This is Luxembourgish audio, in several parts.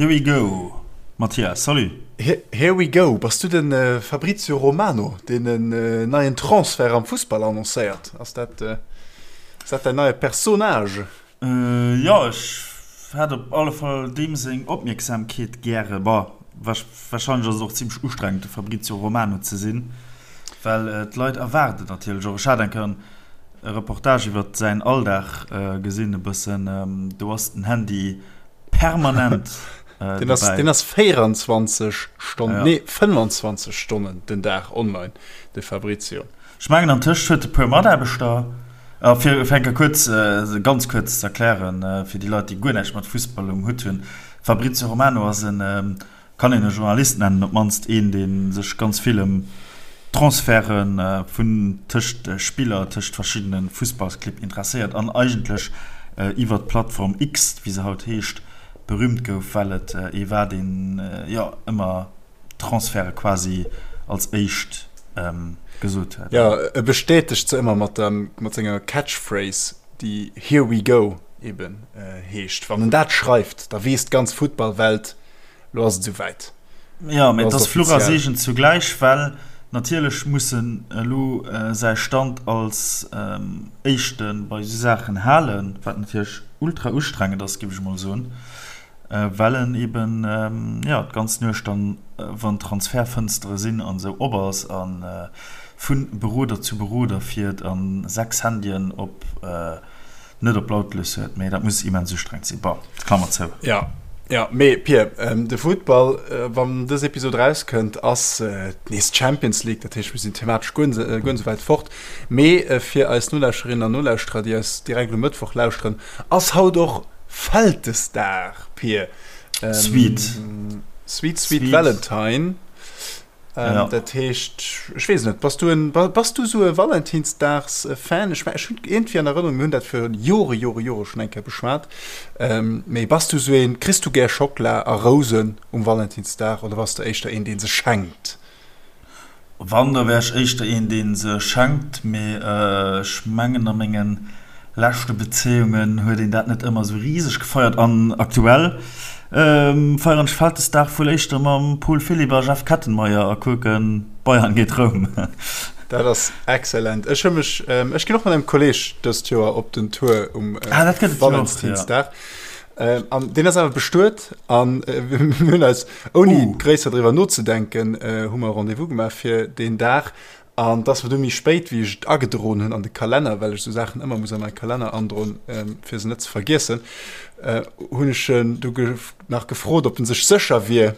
Here we go, Mathias, salut! Here we go, bass du de Fabrizio Romano, deen en neien Transfert am Fussball annoncéiert? Ass dat ass dat däin neie Personnage? Jo, ech hätt op alle Fall deem seng Opmierksamkeet gäre. Bon, warscheinlech ass et och zimmlech ustrengend, de Fabrizio Romano ze sinn, well d'Leit erwaarden natierlech och. Ech hat eng Kéier e Reportage iwwer säin Alldag gesinn e bëssen, do ass den Handy permanent äh, den ass, den ass 24 Stonnen, ja. nee 25 Stonnen den Dag online, de Fabrizio. Ech mengen an tëscht huet e puer Mataarbechter äh, fir fir enke kuerz äh, ganz kuerz ze erklären äh, fir déi Leit, déi guer näischt mat Fussball um Hutt hunn. Fabrizio Romano ass en ähm, kann een e Journalist nennen, op d'mannst een, dee sech ganz vill ëm Transferte vun tëscht Spiller, tëscht verschiddene Fussballsclibb interesséiert an eigentlech iwwer d'Plattform X, wéi se haut heescht, berüümt gouf, well et ee war, deen jo ëmmer Transferte quasi als éischt gesot huet. Jo, e bestätegt se ëmmer mat senger Catchphrase, déi Here we go eben heescht. Wann en dat schreift, da weess d'ganz Futtballwelt, Lo ass et esou wäit. Jo, mee et ass Fluch a Seegen zugläich, well natierlech muss en elo säi Stand als Éischte bei esou Saachen halen, wat natierlech ultra ustrengend ass, géif ech emol soen, well en eben, jo, d'ganz Nuecht dann, wann d'Transfertfënstere sinn an esou, op ass a vu Beroder zu Beroder fiert a 6 Handyen op net op lautlos huet, mee dat muss immens ustrengend sinn. Bon, Klammer zou. Ja, ja, mee Pir, de Futtball, wann dës Episod erauskënnt, ass nees d'Champions League, dat heescht, mir sinn thematesch guer net esou wäit fort. Mee fir eis Nolauschterinnen an Nolauschterer, déi eis direkt um Mëttwoch lauschteren, ass haut och Vältesdag, Pir. Sweet. Sweet, sweet Valentine. Ähm, ja. Dat heescht, ech weess net, bass du en, bass du sou e Valentinsdags-Fan? Ech, ech hunn iergendwéi an Erënnerung, mir hunn dat fir Jore, Jore, Jore schonn eng Kéier beschwat. Ähm, mee bass du sou een, kriss du gär Schockela a Rousen um Valentinsdag oder bass du éischter een, dee se schenkt? Wann, da wär ech éischter een, dee se schenkt, mee ech mengen a mengen leschte Bezéiungen huet een dat net ëmmer esou riseg gefeiert an aktuell feieren ech Vältesdag wuel éischter mam Paul Philipp a Jeff Kettenmeyer a kucken Bayern géint Roum. Dat ass excellent. Ech hu mech, ech ginn och mat engem Kolleg dëst Joer op den Tour um Valentinsdag. An deen ass awer bestuet an mir hunn eis ouni gréisser driwwer nozedenken hu mer e Rendez-vous gemaach fir deen Dag. An et ass mer du méi spéit, wéi ech et agedroen hunn an de Kalenner, well ech esou Saachen ëmmer muss a mäi Kalenner androen, fir se net ze vergiessen, hunn ech en du nach gefrot, ob en sech sécher wier,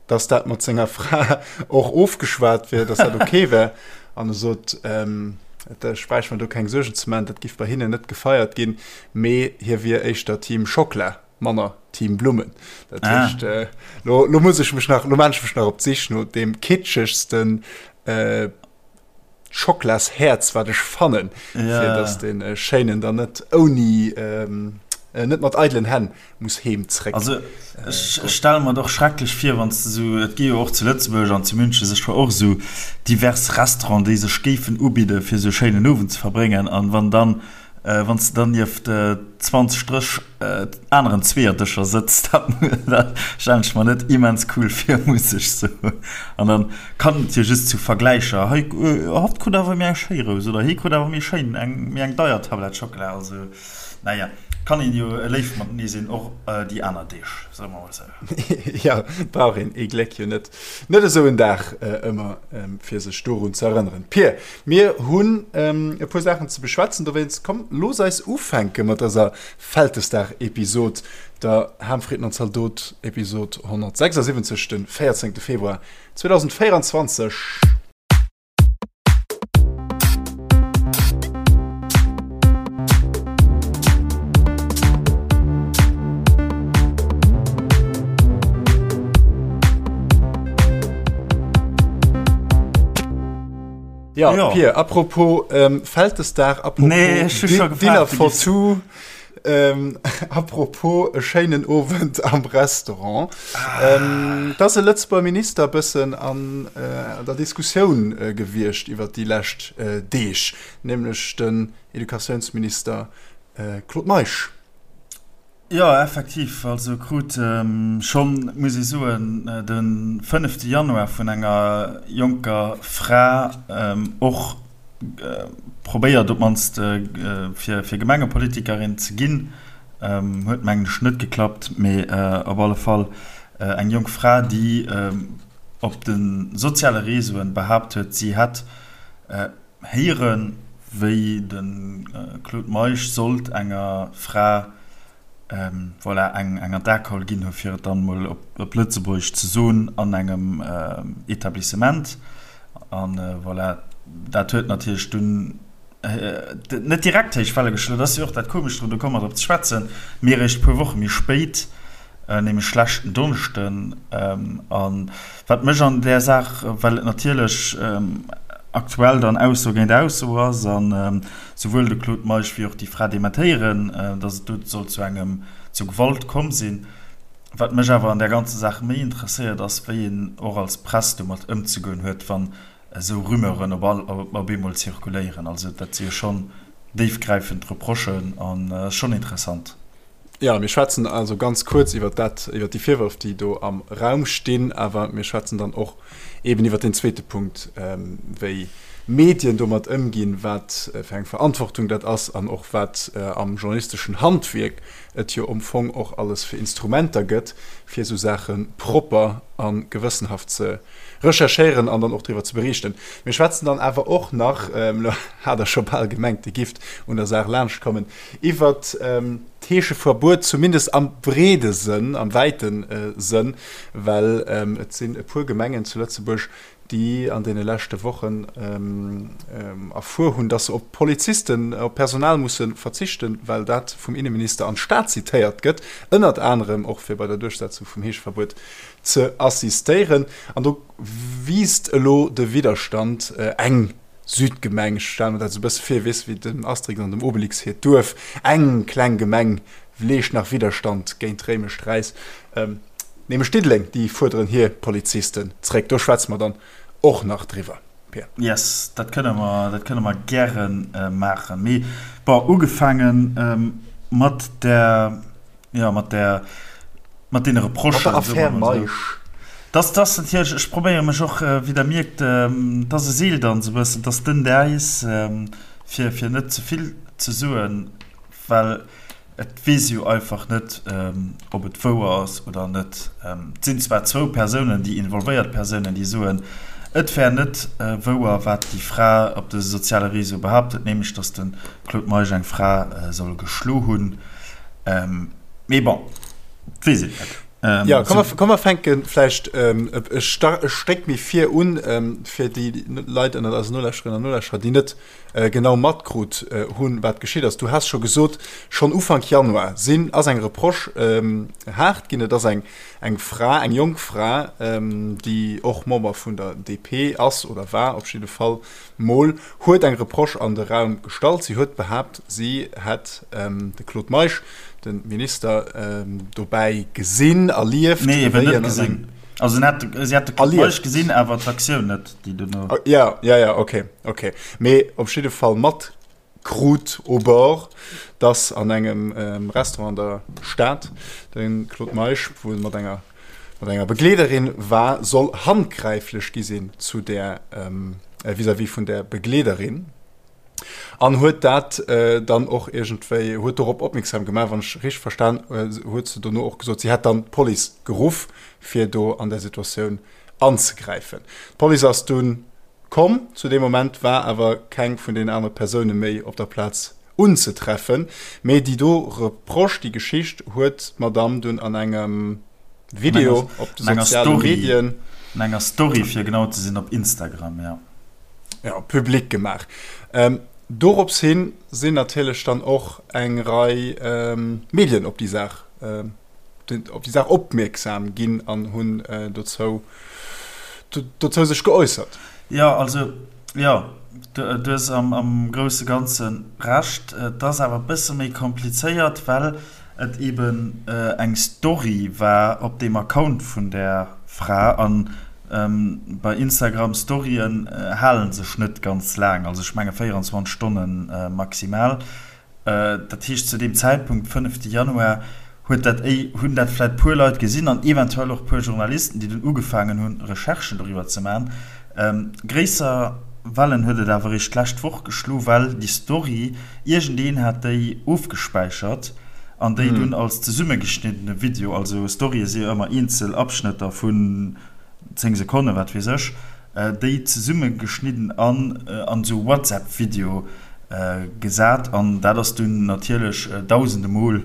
dass dat mat senger Fra och ofgeschwat wier, dass dat ok wär. An e sot, ech bräicht mer do keng Suergen ze maachen, dat giff bei hinnen net gefeiert ginn, mee hie wier éischter Team Schockla. Manner Team Blummen. Dat ah. heescht, äh, lo, lo muss ich mech nach, lo maan ech mech nach op d'Sich no dem kitschegsten äh, Schoklasherz, wat ech fannen, ja. fir dass den äh, Schéinen dann net ouni ähm, äh, net mat eidelen Hänn muss heem zréck. Also äh, ech stelle mer doch schrecklech vir, wann du so, et gi jo och zu Lëtzebuerg an zu München sech och so divers Restauranten, déi sech géifen ubidde fir sou schéinen Owend ze verbréngen an wann dann Wann s de dann nieft 20, 30 aneren Zweeërdëscher sëtz, dat stellen ech mer net immens cool vir, muss ech soen. An dann kann et jo just zu Vergläicher, hei, hatt krut awer méi eng schéi Rous oder hie krut awer méi schéin, eng méi eng deier Tablett Schockela. Also, naja, kann een jo léif matenee sinn, och déi aner Deeg, soe mer mol esou. Jo, brauch een ee Gléck jo net, net esou en Dag ëmmer, fir sech dorun ze erënneren. Pir, Mir hunn e puer Saachen ze beschwätzen, dowéinst komm looss eis ufänke mat dëser Vältesdag-Episod, der Ham, Fritten an Zaldot-Episod 176, de 14 Februar 2024. Ja, ja. Pir, apropos ähm, Vältesdag, apropos nee, Dinner for two, ähm, apropos e schéinen Owend am Restaurant. Ah. Ähm, da ass e Lëtzebuerger Minister bëssen an äh, der Diskussioun äh, gewiescht iwwer déi lescht äh, Deeg, nämlech den Educatiounsminister äh, Claude Meisch. Jo, effektiv. Also krut schonn, muss ee soen, de fënnefte Januar vun enger jonker Fra och probéiert op d'mannst fir Gemengepolitikerin ze ginn. Huet mengen ech net geklappt, mee op alle Fall eng jonk Fra, déi op de soziale Reseauen behaapt huet, si hätt Héieren, wéi de Claude Meisch sollt enger Fra, voilà, eng an d'Akaul ginn hu fir et dann emol op Lëtzebuergesch ze soen, an engem Etablissement. An voilà, dat huet natierlech dunn net direkt héich Welle geschloen, dat ass jo och dat Komescht drun, do komme mer drop ze schwätzen, mee eréischt e puer Woche méi spéit, nämlech leschten Donneschden. A wat mech an där Saach, well et natierlech aktuell dann Ausso géint Ausso ass a souwuel de Claude Meisch wéi och déi Fra dementéieren, datt et do soll zu engem, zu Gewalt komm sinn. Wat mech awer an där ganzer Saach méi interesséiert, ass, wéi een och als Press domat ëmzegoen huet, wann esou Rumeuren op all, op eemol zirkuléieren. Also dat si jo schonn déifgräifend Reprochen an ass schonn interessant. Jo, mir schwätzen also ganz kuerz iwwer dat, iwwer déi Virwërf, déi do am Raum stinn, awer mir schwätzen dann och eben iwwer deen zweete Punkt, wéi Medien domat ëmginn, wat fir eng Verantwortung dat ass an och wat am journalisteschen Handwierk et jo am Fong och alles fir Instrumenter gëtt, fir esou Saache propper a gewëssenhaft ze recherchéieren an dann och driwwer ze beriichten. Mir schwätzen dann awer och nach, elo hat Der scho bal gemengt, Dir gifft un der Saach laanschtkommen, iwwert d'Heescheverbuet, zumindest am breede Sënn, am wäite Sënn, well et sinn e puer Gemengen zu Lëtzebuerg, déi an deene leschte Wochen erfuer hunn, dass se op Polizisten, op Personal musse verzichten, well dat vum Inneminister an d'Stad zitéiert gëtt, ënnert anerem och fir bei der Duerchsetzung vum Heescheverbuet ze assistéieren. An do wiisst elo de Widderstand. Eng Südgemeng, ech stelle mer dat esou e bësse vir, weess wéi dem Asterix an dem Obelix hiert Duerf, eng kleng Gemeng leescht nach Widderstand géint d'réimescht Räis, nämlech Diddeleng, déi fuerderen hir Polizisten zréck. Do schwätze mer dann och nach driwwer, Pir. Yes, dat kënne mer, dat kënne mer gäre maachen. Mee bon, ugefaange mat der Jo, mat där, mat deene Reprochen. Mat der Affär Meisch. Dass, dass natierlech, ech probéiere mech och, wéi Der mierkt, dass e Seeldanz e bëssen, dass dënnt Äis, fir, fir net ze vill ze soen, well et weess ee jo einfach net, ob et wouer ass oder net. Et sinn zwar zwou Persounen, déi involvéiert Persounen, déi soen, et wär net wouer, wat déi Fra op de soziale Réseaue behaapt huet, nämlech dass de Claude Meisch eng Fra soll geschlo hunn. Ähm, mee bon, et weess een net. Ähm, ja, komm, so. komm mer fänke vläicht ähm, e, e Stéck méi vir un, ähm, fir déi Leit ënnert eisen Nolauschterinnen an Nolauschterer, déi net äh, genau matkrut äh, hunn, wat geschitt ass. Du has scho gesot, schonn Ufank Januar sinn ass eng Reproche ähm, haart ginn. Et ass eng, eng Fra, eng jonk Fra, ähm, déi och Member vun der DP ass oder war op jidde Fall, Mol huet eng Reproche an de Raum gestallt. Si huet behaapt, si hätt de Claude Meisch, de Minister, dobäi gesinn, erlieft. Nee, eben net gesinn. Also si hätt de Claude Meisch gesinn, awer d'Aktioun net, déi duerno. Jo, jo, jo, okay, okay. Mee op jidde Fall matkrut au bord, dass an engem Restaurant an der Stad de Claude Meisch wuel mat enger mat enger Begleederin war, soll handgräiflech gi sinn zu där vis-à-vis vun där Begleederin an huet dat dann och iergendwéi huet dorop opmierksam gemaach. Wann ech richteg verstan huet se dono och gesot, si hätt dann d'Police geruff, fir do an där Situatioun anzegräifen. D'Police ass dunn komm, zu deem Moment war awer keng vun deenen anere Persoune méi op der Plaz unzetreffen. Mee déi do Reproche, déi Geschicht huet d'Madamm dunn an engem Video op de soziale Medien. An enger Story, fir genau ze sinn, op Instagram, jo. Jo, public gemaach. Dorops hin sinn natierlech dann och eng Rei Medien op déi Saach, op déi Saach opmierksam ginn an hunn dozou, dozou sech geäussert. Jo, also Jo, du hues am grousse Ganze Recht. Et ass awer e bësse méi komplizéiert, well et eben eng Story war op deem Account vun där Fra. A bei Instagram Storyen hale sech net ganz laang, also ech menge 24 Stonne maximal. Dat heescht, zu deem Zäitpunkt, fënnefte Januar, huet dat éi, hunn dat vläit puer Leit gesinn an eventuell och puer Journalisten, déi dunn ugefaangen hunn, Recherchen doriwwer ze maachen. Gréisser Wellen huet et awer eréischt d'lescht Woch geschlo, well déi Story, iergendeen hat déi ofgespäichert an déi dunn als zesummegeschniddene Video, also Storye si jo ëmmer eenzel Abschnëtter vun 10 Sekonnen, wat weess ech, déi zesummegeschnidden an an esou WhatsApp-Video gesat an dat ass dunn natierlech dausende Mol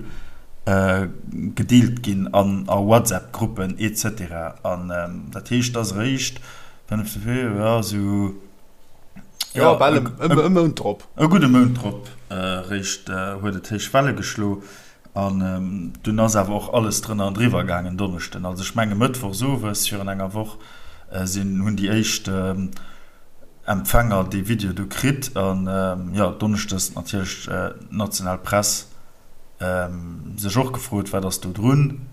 gedeelt ginn an a WhatsApp-Gruppen etc. An dat heescht, et ass eréischt jo, esou, jo, bal e Mount drop. E gudde Mount drop eréischt huet et héich Welle geschlo. An dunn ass awer och alles drënner an driwwer gaangen Donneschden. Also ech menge mëttwochs owes virun enger Woch sinn, hunn déi éischt Empfänger dee Video du kritt. An jo, donneschdes natierlech d'national Press sech och gefrot, wat ass do drun?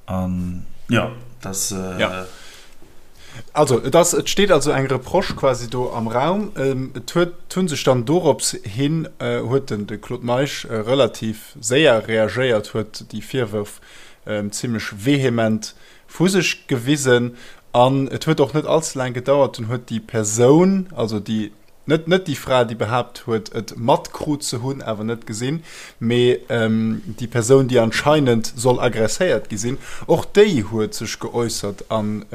An jo, dass. Ja. Also, et ass, et steet also eng Reproche quasi do am Raum. Et huet, hu sech dann dorops hin, huet den de Claude Meisch relativ séier reagéiert, huet déi Virwërf zimlech vehement vu sech gewisen. An et huet och net allze laang gedauert, dunn huet déi Persoun, also déi, Net net déi Fra, déi behaapt huet, et matkrut ze hunn, awer net gesinn, mee déi Persoun, déi anscheinend soll agresséiert gi sinn, och déi huet sech geäussert an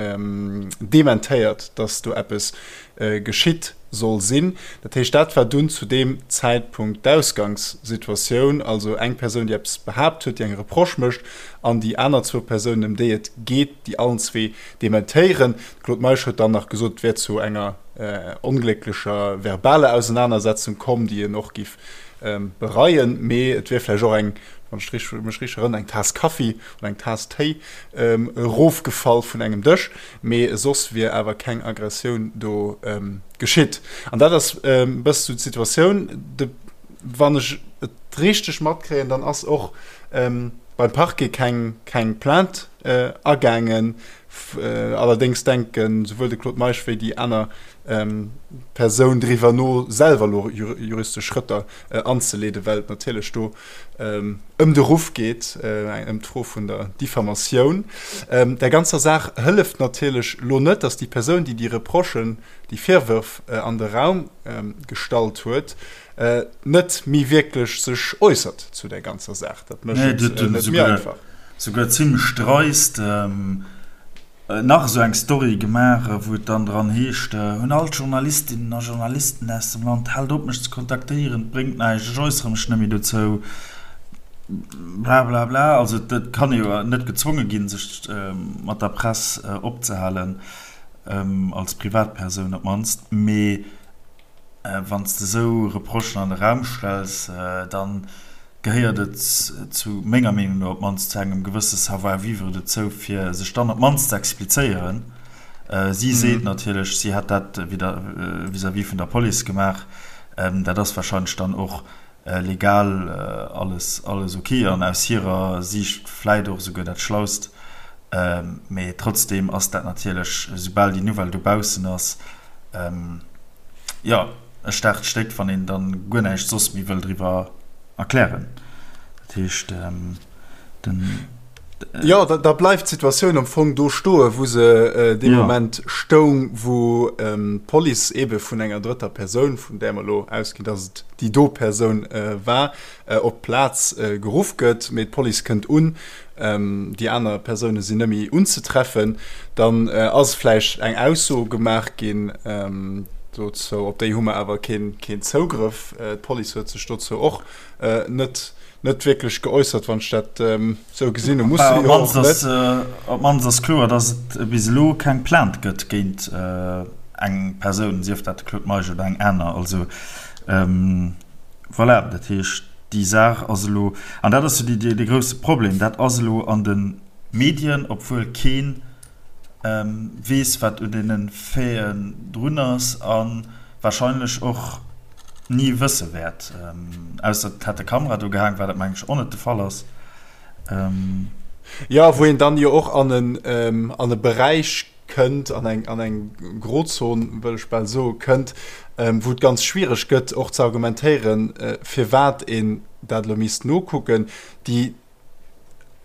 dementéiert, datt do eppes geschitt soll sinn. Dat heescht, dat war dunn zu deem Zäitpunkt d'Ausgangssituatioun, also eng Persoun, déi eppes behaapt huet, déi eng Reproche mécht, an déi aner zwou Persounen, ëm déi et geet, déi allen zwee dementéieren. De Claude Meisch huet dann nach gesot, et wär zu enger onglécklecher verbaler Ausenanersetzung komm, déi en och giff bereien, mee et wier vläicht och eng, wann ech mech richteg erënneren, eng Taass Kaffi oder eng Taass Téi erofgefall vun engem Dësch, mee soss wier awer keng Aggressioun do geschitt. An dat ass e bësse sou d'Situatioun. De, wann ech et richteg matkréien, dann ass och beim Parquet keng, keng Plainte agaangen. Allerdéngs denken souwuel de Claude Meisch wéi déi aner Persoun driwwer no, selwer elo juristesch Schrëtter anzeleeden, well et natierlech do ëm de Ruff geet, ëm d'Fro vun der Diffamatioun. Der ganzer Saach hëlleft natierlech elo net, datt déi Persoun, déi déi Reprochen, déi Virwërf an de Raum gestallt huet, net méi wierklech sech äussert zu där ganzer Saach. Dat mécht et net méi einfach. Souguer zimlech dreist nach esou eng Story gemaach, wou et dann dran heescht, Un all d'Journalistinnen a Journalisten aus dem Land, Haalt op mech ze kontaktéieren, et bréngt näischt, ech äussere mech net méi dozou, blablabla. Also et kann ee jo net gezwonge ginn, sech mat der Press opzehalen, als Privatpersoun op d'mannst, mee Wann s de esou Reprochen an de Raum stells, da gehéiert et zu menger Meenung no op d'mannst zu engem gewësse Savoir-vivre dozou, fir sech dann op d'mannst ze explizéieren. Si seet natierlech, si hätt dat vis-à-vis vun der Police gemaach. Dat ass warscheinlech dann och legal alles alles ok an aus hirer Siicht vläit och esouguer dat Schlaust. Mee trotzdeem ass dat natierlech, esoubal déi Nouvelle dobaussen ass, jo, e staarkt Stéck, wann een dann guer näischt soss méi wëll driwwer erklären. Dat heescht, den. Jo, da bleift d'Situatioun am Fong do stoen, wou se dee Moment stoung, wou d'Police eebe vun enger drëtter Persoun, vun där mer elo ausginn, datt et déi do Persoun war, op d'Plaz geruff gëtt. Mee d'Police kënnt un, déi aner Persoune sinn net méi unzetreffen. Dann ass vläicht eng Ausso gemaach ginn dozou, op déi hu mer awer keen Zougrëff. D'Police huet sech dozou och net net wierklech geäussert, wann ech dat esou gesinn hunn. Muss se jo och net. Op d'mannst ass kloer, datt et bis elo keng Plainte gëtt géint eng Persoun, sief dat de Claude Meisch oder eng aner. Also voilà, dat heescht, déi Saach ass elo, an dat ass jo dee grousse Problem, dat ass elo an de Medien, obwuel kee weess, wat un deene Faiten drun ass a warscheinlech och ni wësse wäert. Ausser et hätt e Kamera do gehaang, wat mengen ech och net de Fall ass. Jo, wou een dann jo och an en an e Beräich kënnt, an eng an eng Grozon, wëll ech bal soe, kënnt, wou et ganz schwiereg gëtt och ze argumentéieren, firwat een dat elo misst nokucken. Déi.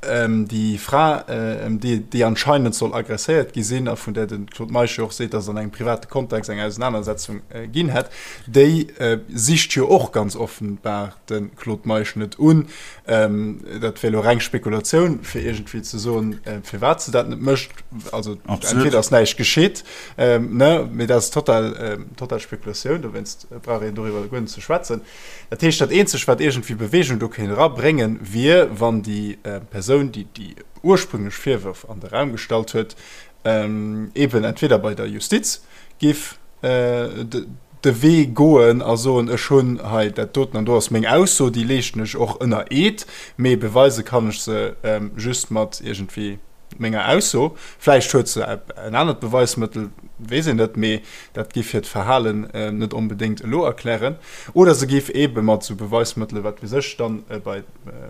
Déi Fra, déi anscheinend soll agresséiert gi sinn a vun där de Claude Meisch jo och seet, datt et an engem private Kontext eng Ausenanersetzung ginn hätt, déi sicht jo och ganz offenbar de Claude Meisch net un. Dat wär elo reng Spekulatioun, fir iergendwéi ze soen, firwat se dat net mécht. Also entweder ass näischt geschitt, ne, mee dat ass total, total Spekulatioun, dowéinst brauch een doriwwer guer net ze schwätzen. Dat heescht, dat Eenzegt, wat iergendwéi Bewegung do kéint erabréngen, wier, wann déi Persoun, déi déi ursprünglech Virwërf an de Raum gestallt huet, eeben entweder bei der Justiz géif de Wee goen a soen, ech hunn hei dat doten an do ass meng Ausso, déi leeschten ech och ënner Eed, mee beweise kann ech se just mat iergendwéi menger Ausso. Vläicht huet se en anert Beweismëttel, weess een net, mee dat géif hiert Verhalen net onbedéngt elo erklären. Oder se géif eebe mat esou Beweismëttele, wat weess ech, dann bei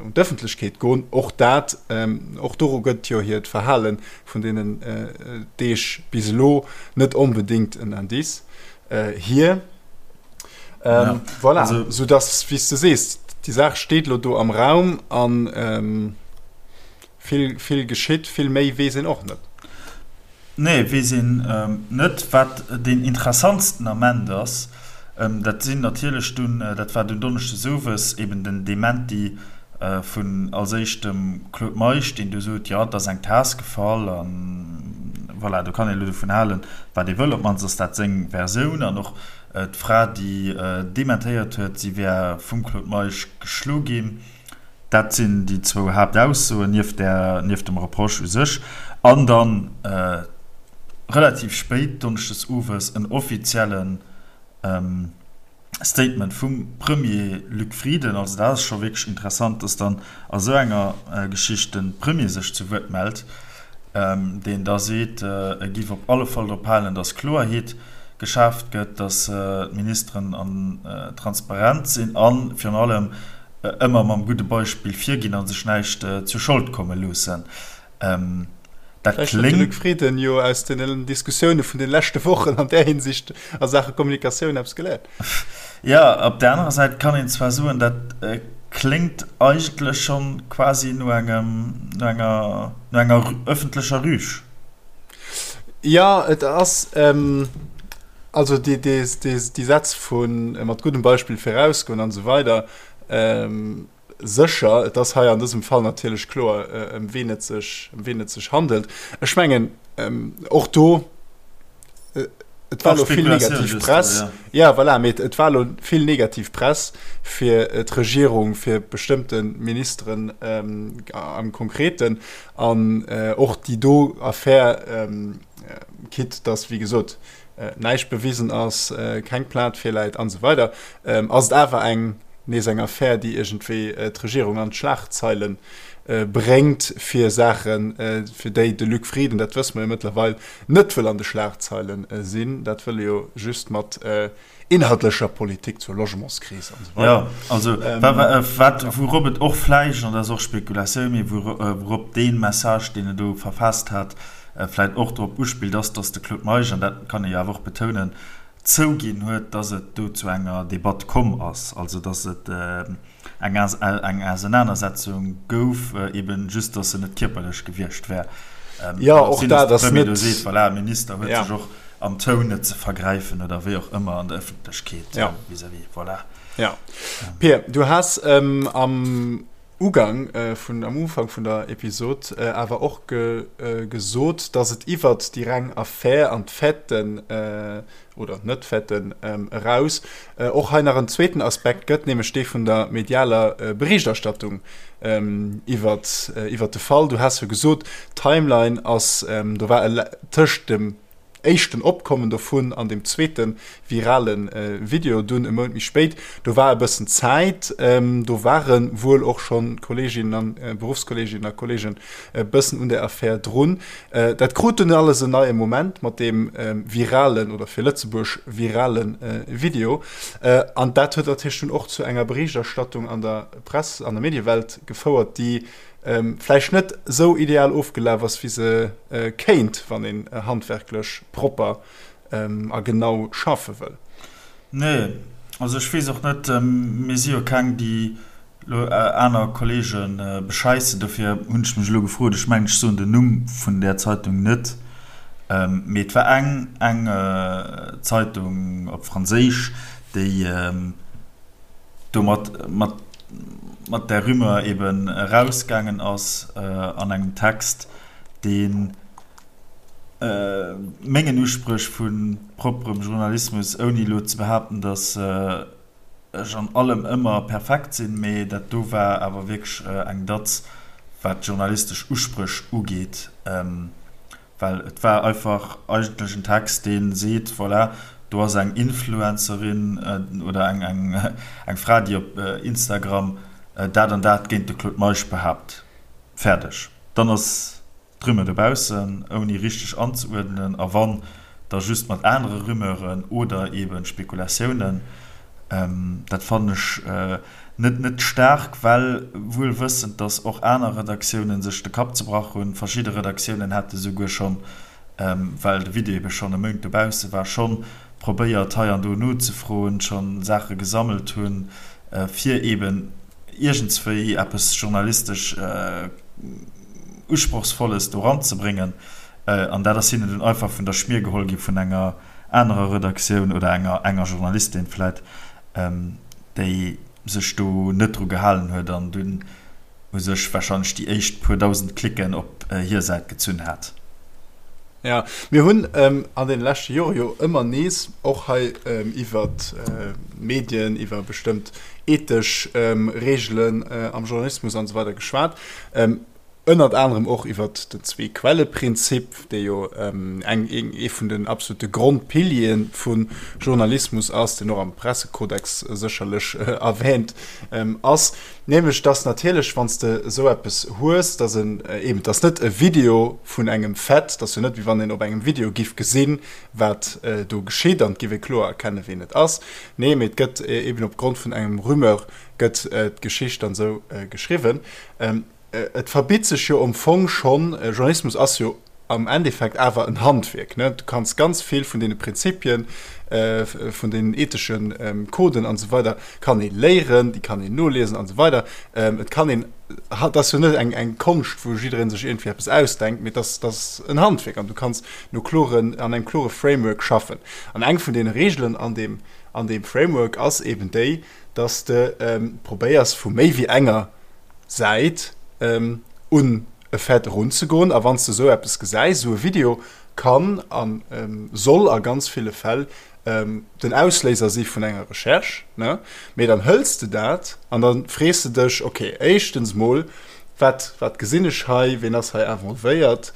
un d'Ëffentlechkeet goen. Och dat, och doru gëtt jo hiert Verhale vun deenen Deeg bis elo net onbedéngt en Indice hier. Voilà, soudass, wéi s de sees, déi Saach steet elo do am Raum an. Vill, vill geschitt, vill méi weess een och net. Nee, weess een net. Wat deen interessantsten Ament ass, dat sinn natierlech dunn, dat war dunn donneschdes owes, eben den Dementi vun als éischt dem Claude Meisch, deen du sot, jo, et ass eng Taass gefall a voilà, do kann een elo dovun halen, wat ee wëll, op d'mannst ass dat seng Versioun. An och d'Fra, déi dementéiert huet, si wär vum Claude Meisch geschlo ginn. Dat sinn déi zwou Haaptaussoen, nieft där, nieft dem Reproche u sech. An dann relativ spéit donneschdes owes en offizielle Statement vum Premier Luc Frieden. Also dat ass scho wierklech interessant, dass dann a sou enger Geschicht de Premier sech zu Wuert mellt, deen da seet, e giff op alle Fall drop halen, dass Kloerheet geschaaft gëtt, dass d'Ministeren transparent sinn a virun allem, ëmmer mam gudde Beispill virginn a sech näischt zu Schold komme loossen. Dat kléngt. Vläicht huet de Luc Frieden jo aus den Diskussioune vun de leschte Wochen an där Hinsicht a Saache Kommunikatioun eppes geléiert. Jo, op där anerer Säit kann een zwar soen, dat kléngt eigentlech schonn quasi no engem, no enger, no enger ëffentlecher Rüg. Jo, et ass. Also déi Sätz vu mat guddem Beispill virausgoen an esou weider, sécher, et ass hei an dësem Fall natierlech kloer, ëm ween et sech, ëm ween et sech handelt. Ech mengen och do, et war elo vill negativ Press, ja voilà, mee et war elo vill negativ Press fir d'Regierung, fir bestëmmte Ministeren am Konkreten an och déi do Affär, Quitte dass, wéi gesot, näischt bewisen ass, keng Plainte virläit an esou weider, ass et awer eng nees eng Affär, déi iergendwéi d'Regierung an d'Schlagzeile bréngt fir Saachen, fir déi de Luc Frieden, dat wësse mer jo mëttlerweil, net wëll an de Schlagzeile sinn. Dat wëll e jo just mat inhaltlecher Politik zur Logementskris an esou weider. Jo, also wat, wourop et och vläicht, an dat ass och Spekulatioun, mee wourop dee Message, deen e do verfaasst hat, vläicht och drop uspillt, ass, datt de Claude Meisch, an dat kann ee jo awer och betounen, zouginn huet, datt et do zu enger Debatt komm ass, also datt et eng eng Ausenanersetzung gouf, eben just, datt se net kierperlech gewiescht wär. Jo, och dat ass net. Do seet, voilà, Minister huet sech och am Toun net ze vergräifen oder wéi och ëmmer an der Ëffentlechkeet vis-à-vis, voilà. Jo. Pir, du has am Ugang vun, am Ufank vun der Episod awer och gesot, datt et iwwert déi reng Affär an d'Faiten, oder Net-Faiten, eraus och hei nach en zweeten Aspekt gëtt, nämlech dee vun der medialer Berichterstattung iwwert, iwwert de Fall. Du has jo gesot, d'Timeline ass, do war e tëscht dem éischten Opkommen dovun an dem zweete virale Video dunn e Mount méi spéit, do war e bëssen Zäit, do ware wuel och schonn Kolleeginnen an Beruffskolleeginnen a Kolleegen e bëssen un der Affär drun. Dat krut dunn alles en neie Moment mat deem viralen oder fir Lëtzebuerg virale Video. An dat huet natierlech dunn och zu enger Berichterstattung an der Press, an der Mediewelt gefouert, déi vläicht net esou ideal ofgelaf ass, wéi se kéint, wann een handwerklech propper a genau schaffe wëll. Nee, also ech weess och net, mir si jo keng, déi. elo aner Kollege bescheissen, dofir hunn ech mech elo gefrot, ech mengen ech soen den Numm vun där Zeitung net, mee et war eng eng Zeitung op Franséisch, déi domat mat mat där Rumeur eben erausgaangen ass an engem Text, deen mengen Uspréch vu propperem Journalismus, ouni elo ze behaapten, datt ech an allem ëmmer perfekt sinn, mee dat do war awer wierklech eng Datz, wat d'journalistesch Uspréch ugeet, well et war einfach eigentlech en Text, dee seet, voilà, do ass eng Influencerin oder eng Fra, déi op Instagram dat an dat géint de Claude Meisch behaapt. Fäerdeg. Dann ass d'Rumeur dobaussen, ouni richteg anzeuerdnen, a wann, da just mat anere Rumeuren oder eebe Spekulatiounen. Dat fannen ech net net staark, well wuel wëssend, datt och aner Redaktiounen sech de Kapp zebrach hunn. Verschidde Redaktiounen hate souguer schonn, well de Video eebe schonn e Mount dobausse war, schonn probéiert hei an do nozefroen, schonn Saache gesammelt hunn, fir eeben iergendswéi eppes journalistesch Usprochsvolles do ranzebréngen. An dat ass hinnen dunn einfach vun der Schmier geholl gi vun enger anerer Redaktioun oder enger enger Journalistin vläit, déi sech do net dru gehalen huet an dunn u sech warscheinlech déi éischt puer dausend Klicken op hir Säit gezunn hat. Jo, mir hunn an deene leschte Jore jo ëmmer nees och hei iwwer d'Medien, iwwer bestëmmt ethesch Reegelen am Journalismus an esou weider geschwat. Ënnert anerem och iwwer den Zwee-Quelle-Prinzip, dee jo eng ee vun den absolute Grondpiliere vu Journalismus ass, deen och am Pressekodex sécherlech erwähnt ass. Nämlech dass natierlech, wann s de esou eppes hues, dass en eben, et ass net e Video vun engem Fait, et ass jo net wéi wann een op engem Video giff gesinn, wat do geschitt an et giff ee kloer erkennen, ween et ass. Nee, mee et gëtt eben opgrond vun engem Rumeur gëtt d'Geschicht dann esou geschriwwen. Et verbitt sech jo am Fong schonn, Journalismus ass jo am Endeffekt awer en Handwierk, ne? Du kanns ganz vill vun deene Prinzipien, vun deenen ethesche Coden an esou weider kann ee léieren, déi kann een noliesen an esou weider. Et kann een, et ass jo net eng eng Konscht, wou jidderee sech iergendwéi eppes ausdenkt, mee et ass, et ass en Handwierk an du kanns no kloren, an engem klore Framework schaffen. An eng vun deene Reegelen an deem, an deem Framework ass eben déi, dass de probéiers vu méi wéi enger Säit un e Fait erunzegoen. A wann s de esou eppes gesäis, esou e Video kann a soll a ganz ville Fäll den Ausléiser si vun enger Recherche, ne? Mee dann hëls de dat an da frees de dech, okay, éischtens mol, wat, wat gesinn ech hei, ween ass hei involvéiert?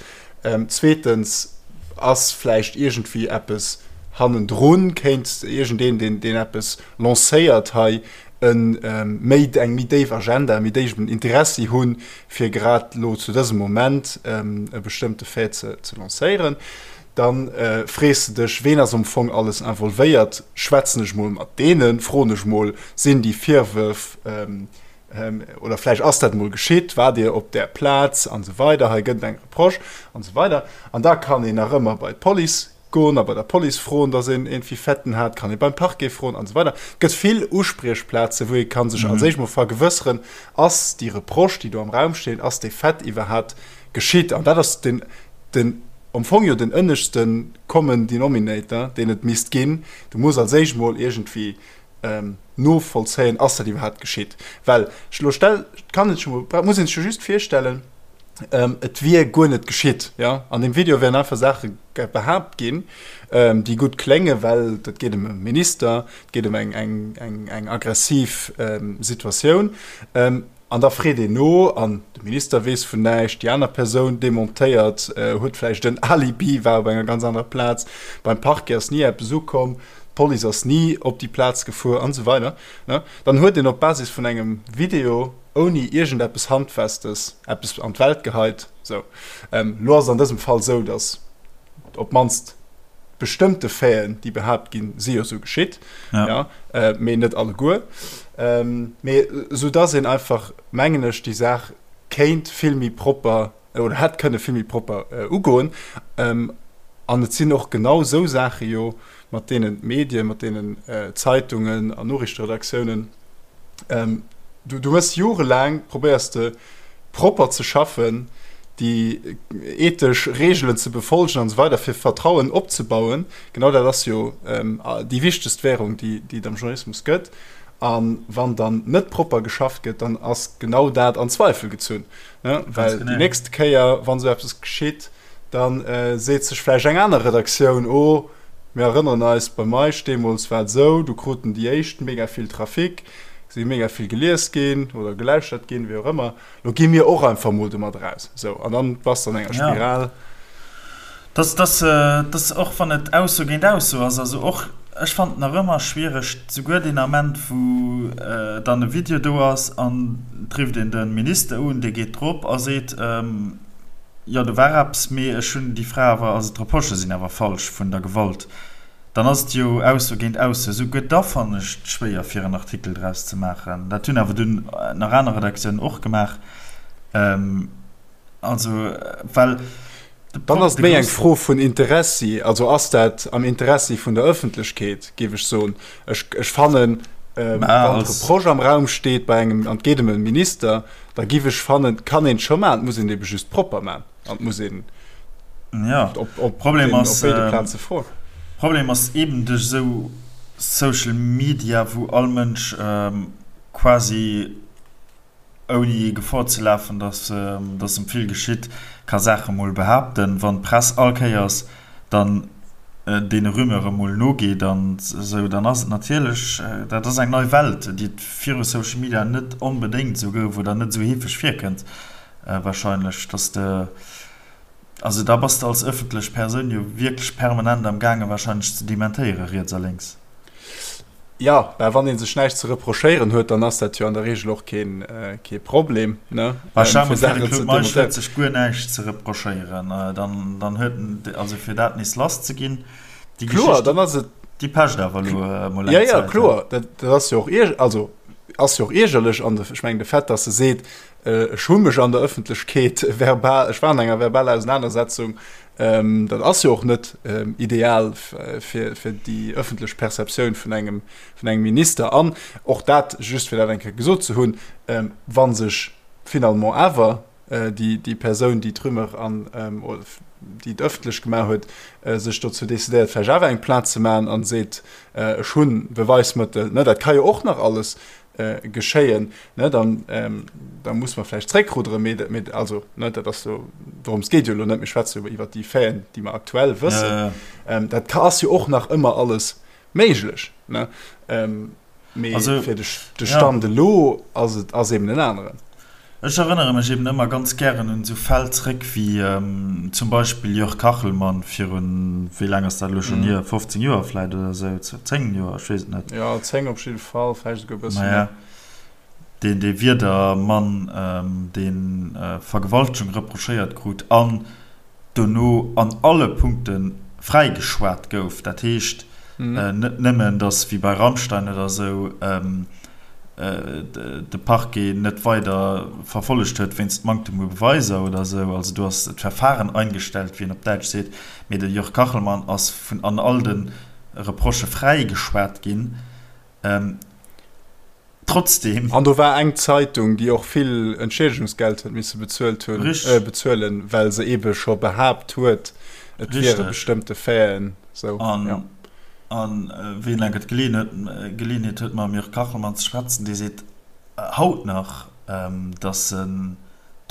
Zweetens, ass vläicht iergendwéi eppes hannendrun, kéint iergendeen, deen, deen eppes lancéiert hei, e méi, eng méi déif Agenda, e méi déiwen Interessi hunn, fir grad elo zu dësem Moment e bestëmmte Fait ze, ze lancéieren? Da frees de dech, ween ass am Fong alles involvéiert? Schwätzen ech mol mat deenen? Froen ech mol, sinn déi Virwërf, oder vläicht ass dat mol geschitt, waart Dir op där Plaz an esou weider, hei gëtt et eng Reproche an esou weider. An da kann een nach ëmmer bei d'Police goen a bei der Police froen, datt een iergendwéi Faiten hat, kann ee beim Parquet froen an esou weider. Et gëtt vill Uspriechplazen, wou ee ka sech als éischt mol vergewësseren, ass déi Reproche, déi do am Raum steet, ass dee Fait iwwerhaapt geschitt? An dat ass den, den, am Fong jo den ënneschte Common Denominator, deen et misst ginn. Du muss als éischt mol iergendwéi novollzéien, ass dat iwwerhaapt geschitt? Well elo stell, kann een sech emol, muss een sech jo just virstellen, et wier guer net geschitt, jo? An deem Video wären einfach Saache behaapt ginn, déi gutt kléngen, well et geet ëm e Minister, et geet ëm eng, eng, eng, eng aggressiv Situatioun. An da freet een no an de Minister weess vun näischt, déi aner Persoun dementéiert, huet vläicht en Alibi, war op enger ganz anerer Plaz, beim Parquet ass ni eppes ukomm, d'Police ass ni op déi Plaz gefuer an esou weider. Dann huet een op Basis vun engem Video ouni iergendeppes Handfestes eppes an d'Welt geheit. Sou, elo ass et an dësem Fall esou, datt op d'mannst bestëmmte Faiten, déi behaapt ginn, si jo sou geschitt, ja. Ja, äh, mee net alleguer. Ähm, mee sou dass een einfach, mengen ech, déi Saach kéint vill méi propper oder hätt kënne vill méi propper äh, ugoen. Ähm, an et sinn och genau sou Saache jo, mat deenen d'Medien, mat deenen äh, Zeitungen an Noriichteredaktiounen ähm, Du, du hues jorelaang, probéiers de propper ze schaffen, déi ethesch Reegelen ze befolgen an esou weider, fir Vertrauen opzebauen. Genau dat ass jo déi wichtegst Währung, déi, déi et am Journalismus gëtt. A wann dann net propper geschafft gëtt, dann ass genau dat an Zweifel gezunn. Ne? Well déi nächst Kéier, wann esou eppes geschitt, da seet sech vläicht eng aner Redaktioun, Oh, mir erënneren eis, bei Meisch deemools war et esou, do kruten déi éischt mega vill Trafic, si mega vill gelies ginn oder gelauschtert ginn, wéi och ëmmer, lo gi mir och einfach mol domat eraus. Esou, an dann bass de an enger Spiral. Dass, dass, dass, och wann et Ausso géint Ausso ass, also och ech fannen et nach ëmmer schwiereg, souguer deen Ament, wou dann e Video do ass an et rifft een de Minister un, dee geet drop a seet, jo do war eppes, mee ech hunn déi Fra awer, also d'Reprochë sinn awer falsch vun der Gewalt. Dann ass et jo Ausso géint Ausso. Souguer da fannen ech et schwéier, fir en Artikel draus ze maachen. Dat hunn awer dunn nach aner Redaktiounen och gemaach. Also, well de Dann ass et méi eng Fro vun Interessi. Also ass dat am Interessi vun der Ëffentlechkeet, géif ech soen. Ech, ech fannen, wann d'Reproche am Raum steet bei engem, an et geet ëm e Minister, da géif ech fannen, kann een et scho maachen. Et muss een et ebe just propper maachen. An muss een ja. op, op, Problem den, ass, op béide Plaze froen. Problem ass eben duerch esou Social Media, wou all Mënsch ähm, quasi ouni Gefor ze lafen, dass, ähm, dass em vill geschitt, ka Saache mol behaapten. Wann d'Press all Kéiers dann äh, deene Rumeure mol nogeet an esou, dann ass et natierlech, äh, dat ass eng nei Welt, déi et viru Social Media net onbedéngt esou gouf oder net esou heefeg virkënnt. Wahrscheinlech, dass de, also da bass de als ëffentlech Persoun jo wierklech permanent am gaange wahrscheinlech ze dementéiere riets a lénks. Jo, mä wann ee sech näischt ze reprochéieren huet, dann ass dat jo an der Reegel och keen, kee Problem, ne? Bah, stell mol vir, de Claude Meisch huet sech guer näischt ze reprochéieren, dann, dann huet en, also fir dat nees lass ze ginn, déi Kloer, dann ass et. Déi pecht awer elo emol eng Zäit. Jo, jo, kloer, dat, dat ass jo och ierg, also ass jo och iergerlech an de, ech mengen de Fait, dass e seet, Ech hu mech an der Ëffentlechkeet verbal, ech war an enger verbaler Ausenanersetzung, dat ass jo och net ideal fir déi ëffentlech Perceptioun vun engem, vun engem Minister. An och dat, just fir dat eng Kéier gesot ze hunn, wa sech finalement awer déi Persoun, déi d'Rumeur an déi et ëffentlech gemaach huet, sech dozou decidéiert, vläicht awer eng Plainte ze maachen a seet, ech hu Beweismëttel, dat ka jo och nach alles geschéien, ne, dann, ähm, da muss mer vläicht zréckruderen, mee, mee also, ne, dat ass jo, dorëms geet jo elo net, mir schwätze jo iwwert déi Faiten, déi mer aktuell wëssen. Ja, ja. Ähm, dat ka, ass jo och nach ëmmer alles méiglech, ne, ähm, mee also, fir de, de Stand ja. elo ass et, ass eben en aneren. Ech erënnere mech eben ëmmer ganz gären un esou Fäll zréck wéi zum Beispill Jörg Kachelmann virun, wéi laang ass dat elo schonn hier, 15 Joer vläit oder esou, 10 Joer, ech weess et net. Jo, 10 op jidde Fall, vläicht esouguer e bësse méi. Deen, dee Wieder-Mann, dee Vergewaltegung reprochéiert krut an dono an alle Punkte fräigeschwat gouf. Dat heescht net nëmmen, datt wéi bei Rammstein oder esou de Parquet net weider verfollegt huet wéinst Manktem u Beweiser oder esou, also do ass d'Verfahren eingestellt, wéi een op Däitsch seet, mee de Jörg Kachelmann ass vun an all de Reprochë fräigeschwat ginn. Trotzdem. An do war eng Zeitung, déi och vill Entschiedegungsgeld huet misse bezuelt hunn, bezuelen, well se eebe scho behaapt huet, et wiere bestëmmte Faiten sou. An, an wien enker d'Geleeënheet huet, mam Jörg Kachelmann ze schwätzen, dee seet haut nach, datt en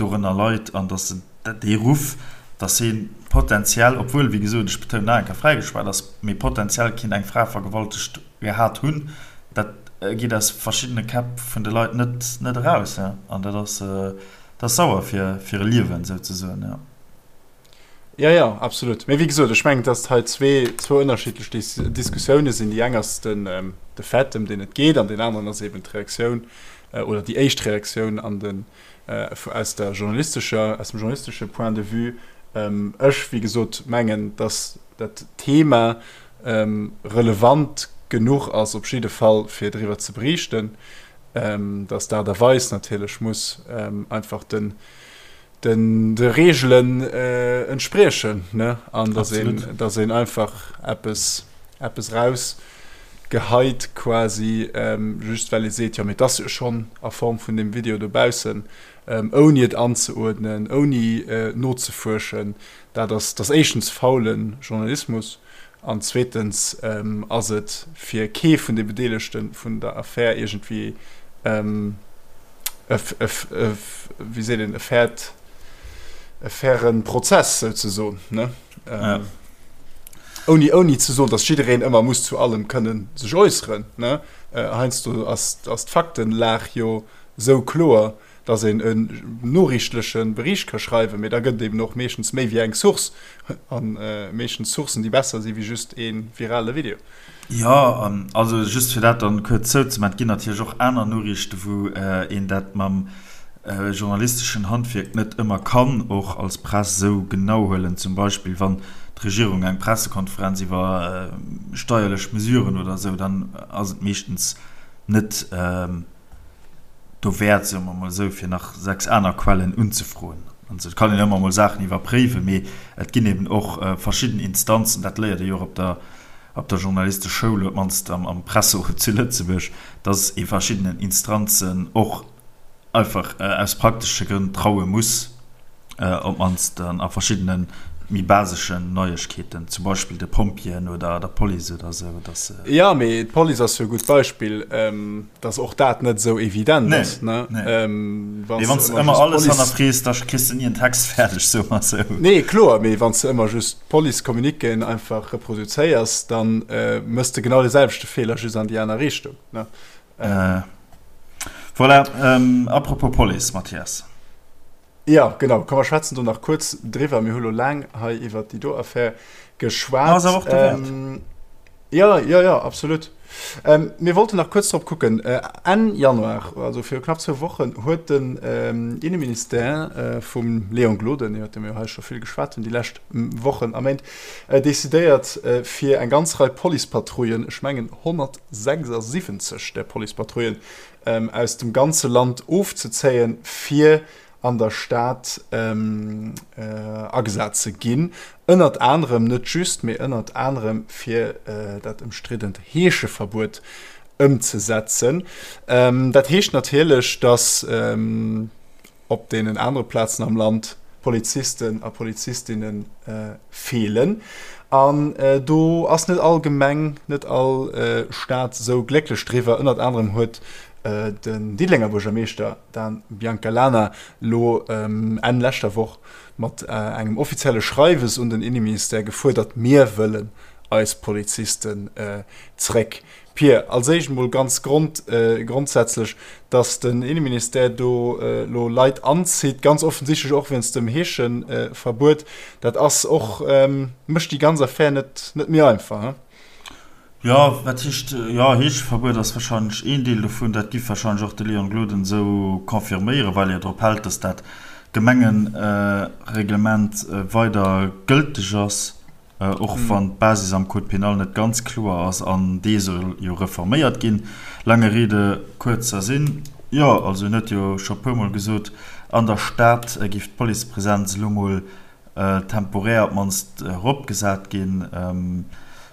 dorënner leit an datt en dee Ruff, datt hie potenziell, obwuel, wéi gesot, ech betounen nach eng Kéier, fräigeschwat ass, mee potenziell kinnt eng Fra vergewaltegt gehat hunn, dat geet aus verschiddene Käpp vun de Leit net net eraus, ja. An dat ass dat ass sauer fir fir e Liewen souzesoen, ja. Ja, ja, absolut. Mee wéi gesot, ech mengen, datt hei zwee, zwou ënnerschiddlech Dis Diskussioune sinn. Déi eng ass den, de Fait, ëm deen et geet, an deen aneren ass eben d'Reaktioun oder déi éischt Reaktioun an den, aus der journalistescher, aus dem journalistesche Point de vue. Ech, wéi gesot, mengen, datt dat Thema relevant genuch ass op jidde Fall fir driwwer ze beriichten, datt d'Aart a Weis natierlech muss einfach den den de Reegelen entspriechen, ne, an datt een datt een einfach eppes eppes eraus. geheit quasi, just well ee seet, jo mee et ass jo schonn a Form vun deem Video dobaussen, ouni et anzeuerdnen, ouni nozefuerschen, dat ass, dat ass éischtens faule Journalismus an zweetens ass et fir kee vun de Bedeelegte vun der Affär iergendwéi e, wéi seet een, e fairt, e faire Prozess souzesoen, ne? Ouni, ouni ze soen, datt jiddereen ëmmer muss zu allem kënnen sech äusseren, ne? Heiansdo ass, ass d'Faktenlag jo esou kloer, datt een en noriichtleche Bericht ka schreiwen, mee da gëtt et eben och meeschtens méi wéi eng Source, a meeschtens Sourcen, déi besser si wéi just ee virale Video. Jo, an also just fir dat dann kuerz zouzemaachen, et ginn natierlech och aner Noriichten, wou een dat mam journalisteschen Handwierk net ëmmer kann och als Press esou genau huelen, zum Beispill wann d'Regierung eng Pressekonferenz iwwer steierlech Mesuren oder esou, dann ass et meeschtens net dowäert, soe mer emol esou, fir nach 6 aner Quellen unzefroen. Also et kann een ëmmer emol Saachen iwwerpréiwen, mee et ginn eben och verschidden Instanzen, dat léiert ee jo och op der op der Journalisteschoul, op d'mannst am Presserot zu Lëtzebuerg, dass ee verschiddenen Instanzen och einfach aus praktesche Grënn traue muss. op d'mannst a verschiddene méi baseschen Neiegkeeten, zum Beispill de Pompjeeën oder der Police oder esou, dass. Jo, mee d'Police ass jo e gutt Beispill, dass och dat net esou evident ass, ne? Nee, nee. Mee wann s de ëmmer alles hannerfrees, da kriss de ni en Text fäerdeg, soe mer esou. Nee, kloer, mee wann s de ëmmer just d'Police-Communiquéen einfach reproduzéiers, da méchs de genau de selwechte Feeler, just an déi aner Richtung, ne? Voilà, apropos Police, Mathias. Jo, genau. Komm, mer schwätzen do nach kuerz driwwer. Mir hu lo laang hei iwwert déi do Affär geschwat. Ass awer och derwäert. Jo, jo, jo, absolut. Mir wollten nach kuerz drop kucken. Enn Januar, also viru knapp zwou Wochen, huet den Inneministère vum Léon Gloden, iwwert dee mir jo hei scho vill geschwat hunn déi lescht Wochen a Méint, decidéiert, fir eng ganz Rei Policepatrouillen, ech mengen 176 där Policepatrouillen, aus dem ganze Land ofzezéien, fir an der Stad agesat ze ginn, ënnert anerem, net just, mee ënnert anerem fir dat ëmstriddent Heescheverbuet ëmzesetzen. Dat heescht natierlech, datt op deenen anere Plazen am Land Polizisten a Polizistinne feelen. An do ass net all Gemeng, net all Stad esou glécklech driwwer. Ënnert anerem huet den Diddelenger Buergermeeschter Dan Biancalana lo Enn leschter Woch mat engem offizielle Schreiwes un den Inneministère gefuerdert, Mir wëllen eis Polizisten zréck. Pir, als éischt emol ganz grond, grondsätzlech, datt den Inneministère do elo Leit anzitt, ganz offensichtlech och wéinst dem Heescheverbuet, dat ass och, mécht déi ganz Affär net, net méi einfach, he? Jo, wat heescht, jo, Heescheverbuet ass wahrscheinlech een Deel dovun. Dat giff wahrscheinlech och de Léon Gloden esou confirméieren, well e jo drop hält, datt dat Gemengereglement weider gëlteg ass. Och wann d'Basis am Code pénal net ganz kloer ass an dee soll jo reforméiert ginn. Lange Rede, kurzer Sinn, jo, also en huet jo scho puermol gesot, an der Stad géif d'Policepresenz elo mol temporär op d'mannst eropgesat ginn.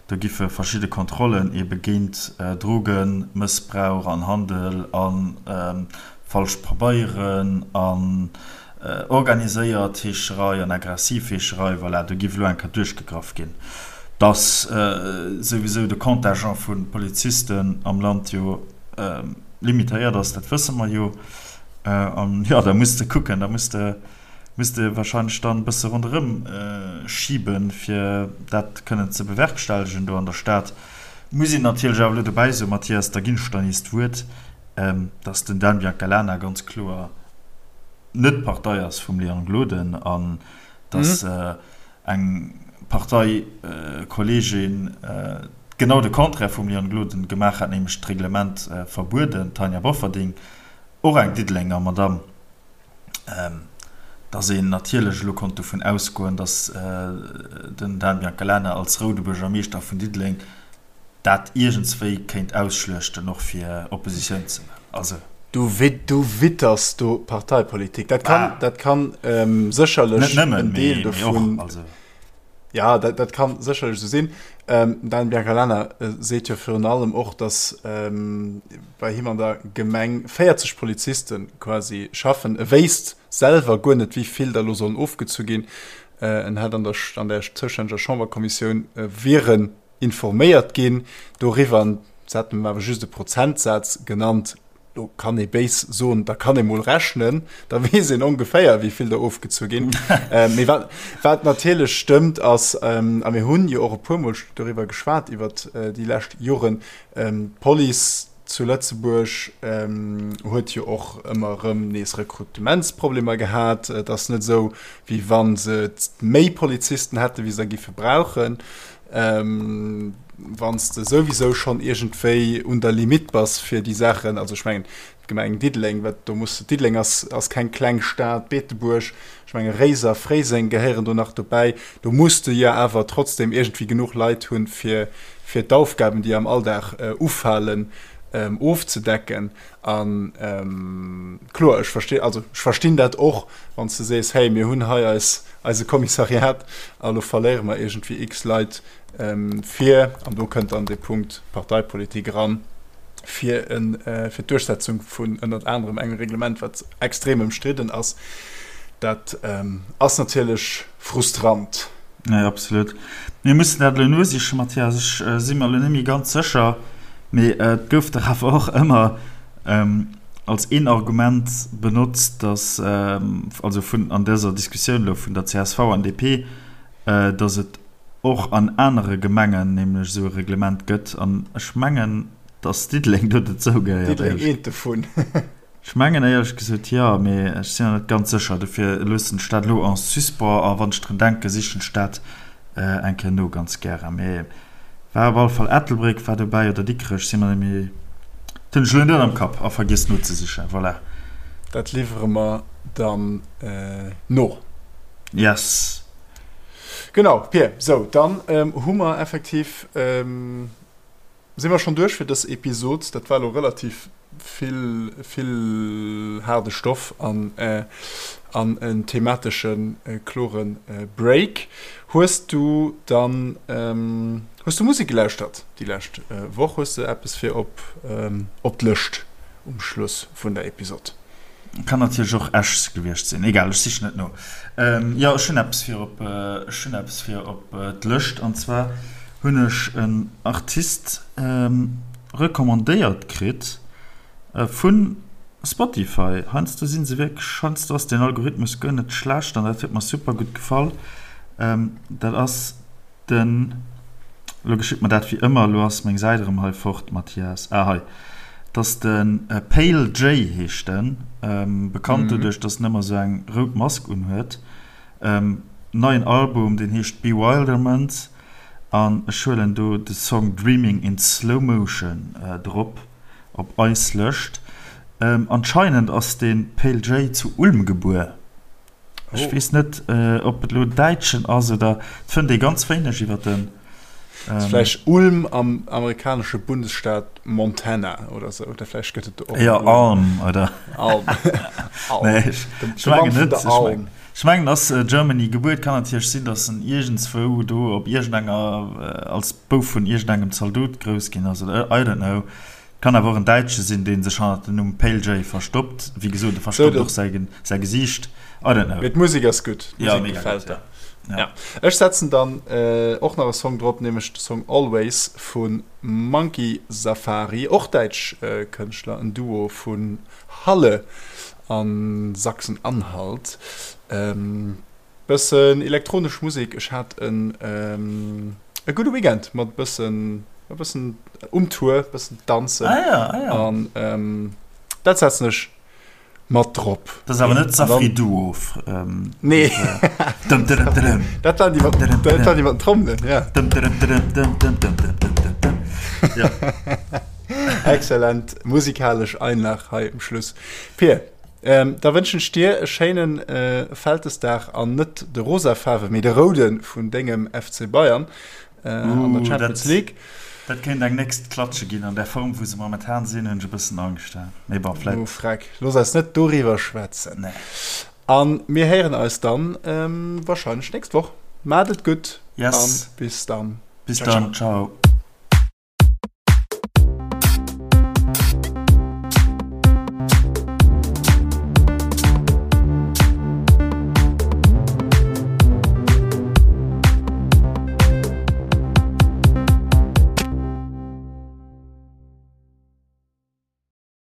Do giffe verschidde Kontrollen ebe géint Drogenmëssbrauch an Handel a falsch Pabeieren an Organiséiert Heescherei an aggressiv Heescherei, voilà, do giff elo eng Kéier duerchgegraff ginn. Dass souwisou de Contingent vu Polizisten am Land jo limitéiert ass, dat wësse mer jo. An jo, da muss de kucken, da muss de, muss de wahrscheinlech dann e bësse ronderëm schiben, fir dat kënnen ze bewerkstellegen do an der Stad. Muss een natierlech awer elo dobäi soen, Mathias, da ginn ech der nees d'Wuert, dass den Dan Biancalana ganz kloer net d'Partei ass vum Léon Gloden an dass eng Parteikolleegin genau de Contraire vum Léon Gloden gemaach hat, nämlech d'Reglement verbueden, d'Tanja Bofferding, och eng Diddelenger Madamm, dass een natierlech elo konnt dovun ausgoen, dass den Dan Biancalana als roude Buergermeeschter vun Diddeleng dat iergendswéi kéint ausschluechten, och fir Oppositioun ze man. Also. Du witters do Parteipolitik. Dat kann, dat kann sécherlech en Deel dovun. Ja, dat, dat kann sécherlech esou sinn. Ähm, Dan Biancalana äh, seet jo virun allem och, datt ähm, bei him an der Gemeng 40 Poliziste quasi schaffen. E wéisst selwer guer net, wéi vill der elo sollen ofgezu ginn. Äh, en hätt an der, an der zoustänneger Chamberkommissioun äh, wieren informéiert ginn doriwwer, an se hätten em awer just e Prozentsaz genannt. Do kann ee béis soen, da kann ee mol rechnen, da weess een ongeféier, wéi vill der ofgezu ginn. Mee wat, wat natierlech stëmmt, ass, a mir hunn jo och e puermol doriwwer geschwat iwwert déi lescht Joren, d'Police zu Lëtzebuerg huet jo och ëmmer erëm nees Rekrutementsproblemer gehat. Et ass net esou, wéi wa se méi Polizisten hätten, wéi se der géife brauchen. Wann s de souwisou schonn iergendwéi un der Limitt bass fir déi Saachen, also ech mengen d'Gemeng Diddeleng, wat do muss, Diddeleng ass, ass keng kleng Stad, Beetebuerg, ech menge Réiser, Fréiseng gehéieren do nach dobäi, do muss de jo awer trotzdem iergendwéi genuch Leit hunn, fir, fir d'Aufgaben, déi am Alldag ufalen, ofzedecken. A kloer, ech versti, also ech verstinn dat och, wann s de sees, hey, mir hunn hei eis, eise Kommissariat a lo verléiere mer iergendwéi x Leit fir, an do kënnt dann dee Punkt Parteipolitik eran, fir en, fir d'Duerchsetzung vun ënnert anerem engem Reglement, wat extrem ëmstridden ass. Dat ass natierlech frustrant. Nee, absolut. Mir mussen dat elo nosichen, Mathias. Ech si mer elo net méi ganz sécher, mee et gouf dach awer och ëmmer als een Argument benotzt, dass, also vun, an dëser Diskussioun elo vun der csv an DP, dass et och an anere Gemengen nämlech esou e Reglement gëtt. An ech mengen, dass Diddeleng do dozou gehéiert. Diddeleng eent dovun. Ech mengen éierlech gesot jo, mee ech sinn nach net ganz sécher. Dofir loossen ech dat elo en suspens a wann ech drun denken, sichen ech dat eng Kéier no, ganz gären. Mee war op alle Fall Ettelbréck war dobäi oder Dikrech, si mer net méi, dat hunn ech elo net am Kapp a vergiess nozesichen. Voilà. Dat liwwere mer dann no. Yes. Genau, Pir. Sou, dann hu mer effektiv, si mer schonn duerch fir dës Episod. Dat war elo relativ vill, vill haarde Stoff an, an en thematesche klore Break. Hues du dann, hues du Musek gelauschtert déi lescht Woch? Hues de eppes fir op, op d'Lëscht um Schluss vun der Episod? Kann natierlech och Esch gewiescht sinn. Egal, ech sichen et no. Jo, ech hunn eppes fir op, ech hunn eppes fir op d'Lëscht. An zwar hunn ech en Artist recommandéiert kritt vu Spotify. Heiansdo si se wierklech, heiansdo ass den Algorithmus guer net schlecht an dat huet mer super gutt gefall. Dat ass Den, elo geschitt mer dat wéi ëmmer, elo ass meng Säit erëm hei fort, Mathias, ah hei, 't ass de Pale Jay heescht en, bekannt doduerch, dass en ëmmer esou eng rout Mask unhuet. Neien Album, deen heescht Bewilderment an ech huelen do de Song Dreaming in Slow Motion drop op eis Lëscht. Anscheinend ass de Pale Jay zu Ulm gebuer. Ech weess net, ob et elo Däitschen ass oder. Et fënnt ee ganz wéineg iwwer den. Ass vläicht Ulm am amerikanesche Bundesstaat Montana oder sou. Oder vläicht gëtt et do och. Jo, Alm, oder? Alm. Nee, ech mengen net. Ech mengen, ass Germany gebuer. Et kann natierlech sinn, datt en iergendzwou do op iergendenger, als Bouf vun iergendengem Zaldot grouss ginn ass oder I don't know. Kann awer och en Däitsche sinn, dee sech hannert dem Numm Pale Jay verstoppt. Wéi gesot, e verstoppt och säi Gesiicht. I don't know. Mee d'Musek ass gutt. Ja, mega gutt, ja. Ja. Ech setzen dann och nach e Song drop, nämlech de Song Always vu Monkey Safari, och däitsch Kënschtler, en Duo vun Halle a Sachsen-Anhalt. Bëssen elektronesch Musek. Ech hat en e gudde Weekend mat bëssen e bëssen um Tour, bëssen danzen. Ah ja, ah ja. An dat setzen ech mat drop. Dat ass awer net Safri Duo. Nee. Dum dum dum. Dat waren déi mat, dat waren déi mat den Trommelen, ja. Dum dum dum dum dum dum dum dum dum dum. Ja. Excellent musikalesch Einlag hei um Schluss. Pir. Da wënschen ech dir e schéinen Vältesdag an net de rosa Faarwe mee de roude vun dengem FC Bayern an der Champions League. Dat kéint eng nächst Klatsche ginn. An der Form wou se momentan sinn hunn ech e bëssen Angscht. Mee bon, vläit. Oh freck, looss eis net doriwwer schwätzen. Nee. A mir héieren eis dann warscheinlech nächst Woch. Maacht et gutt. Yes. An bis dann. Bis dann. Ciao.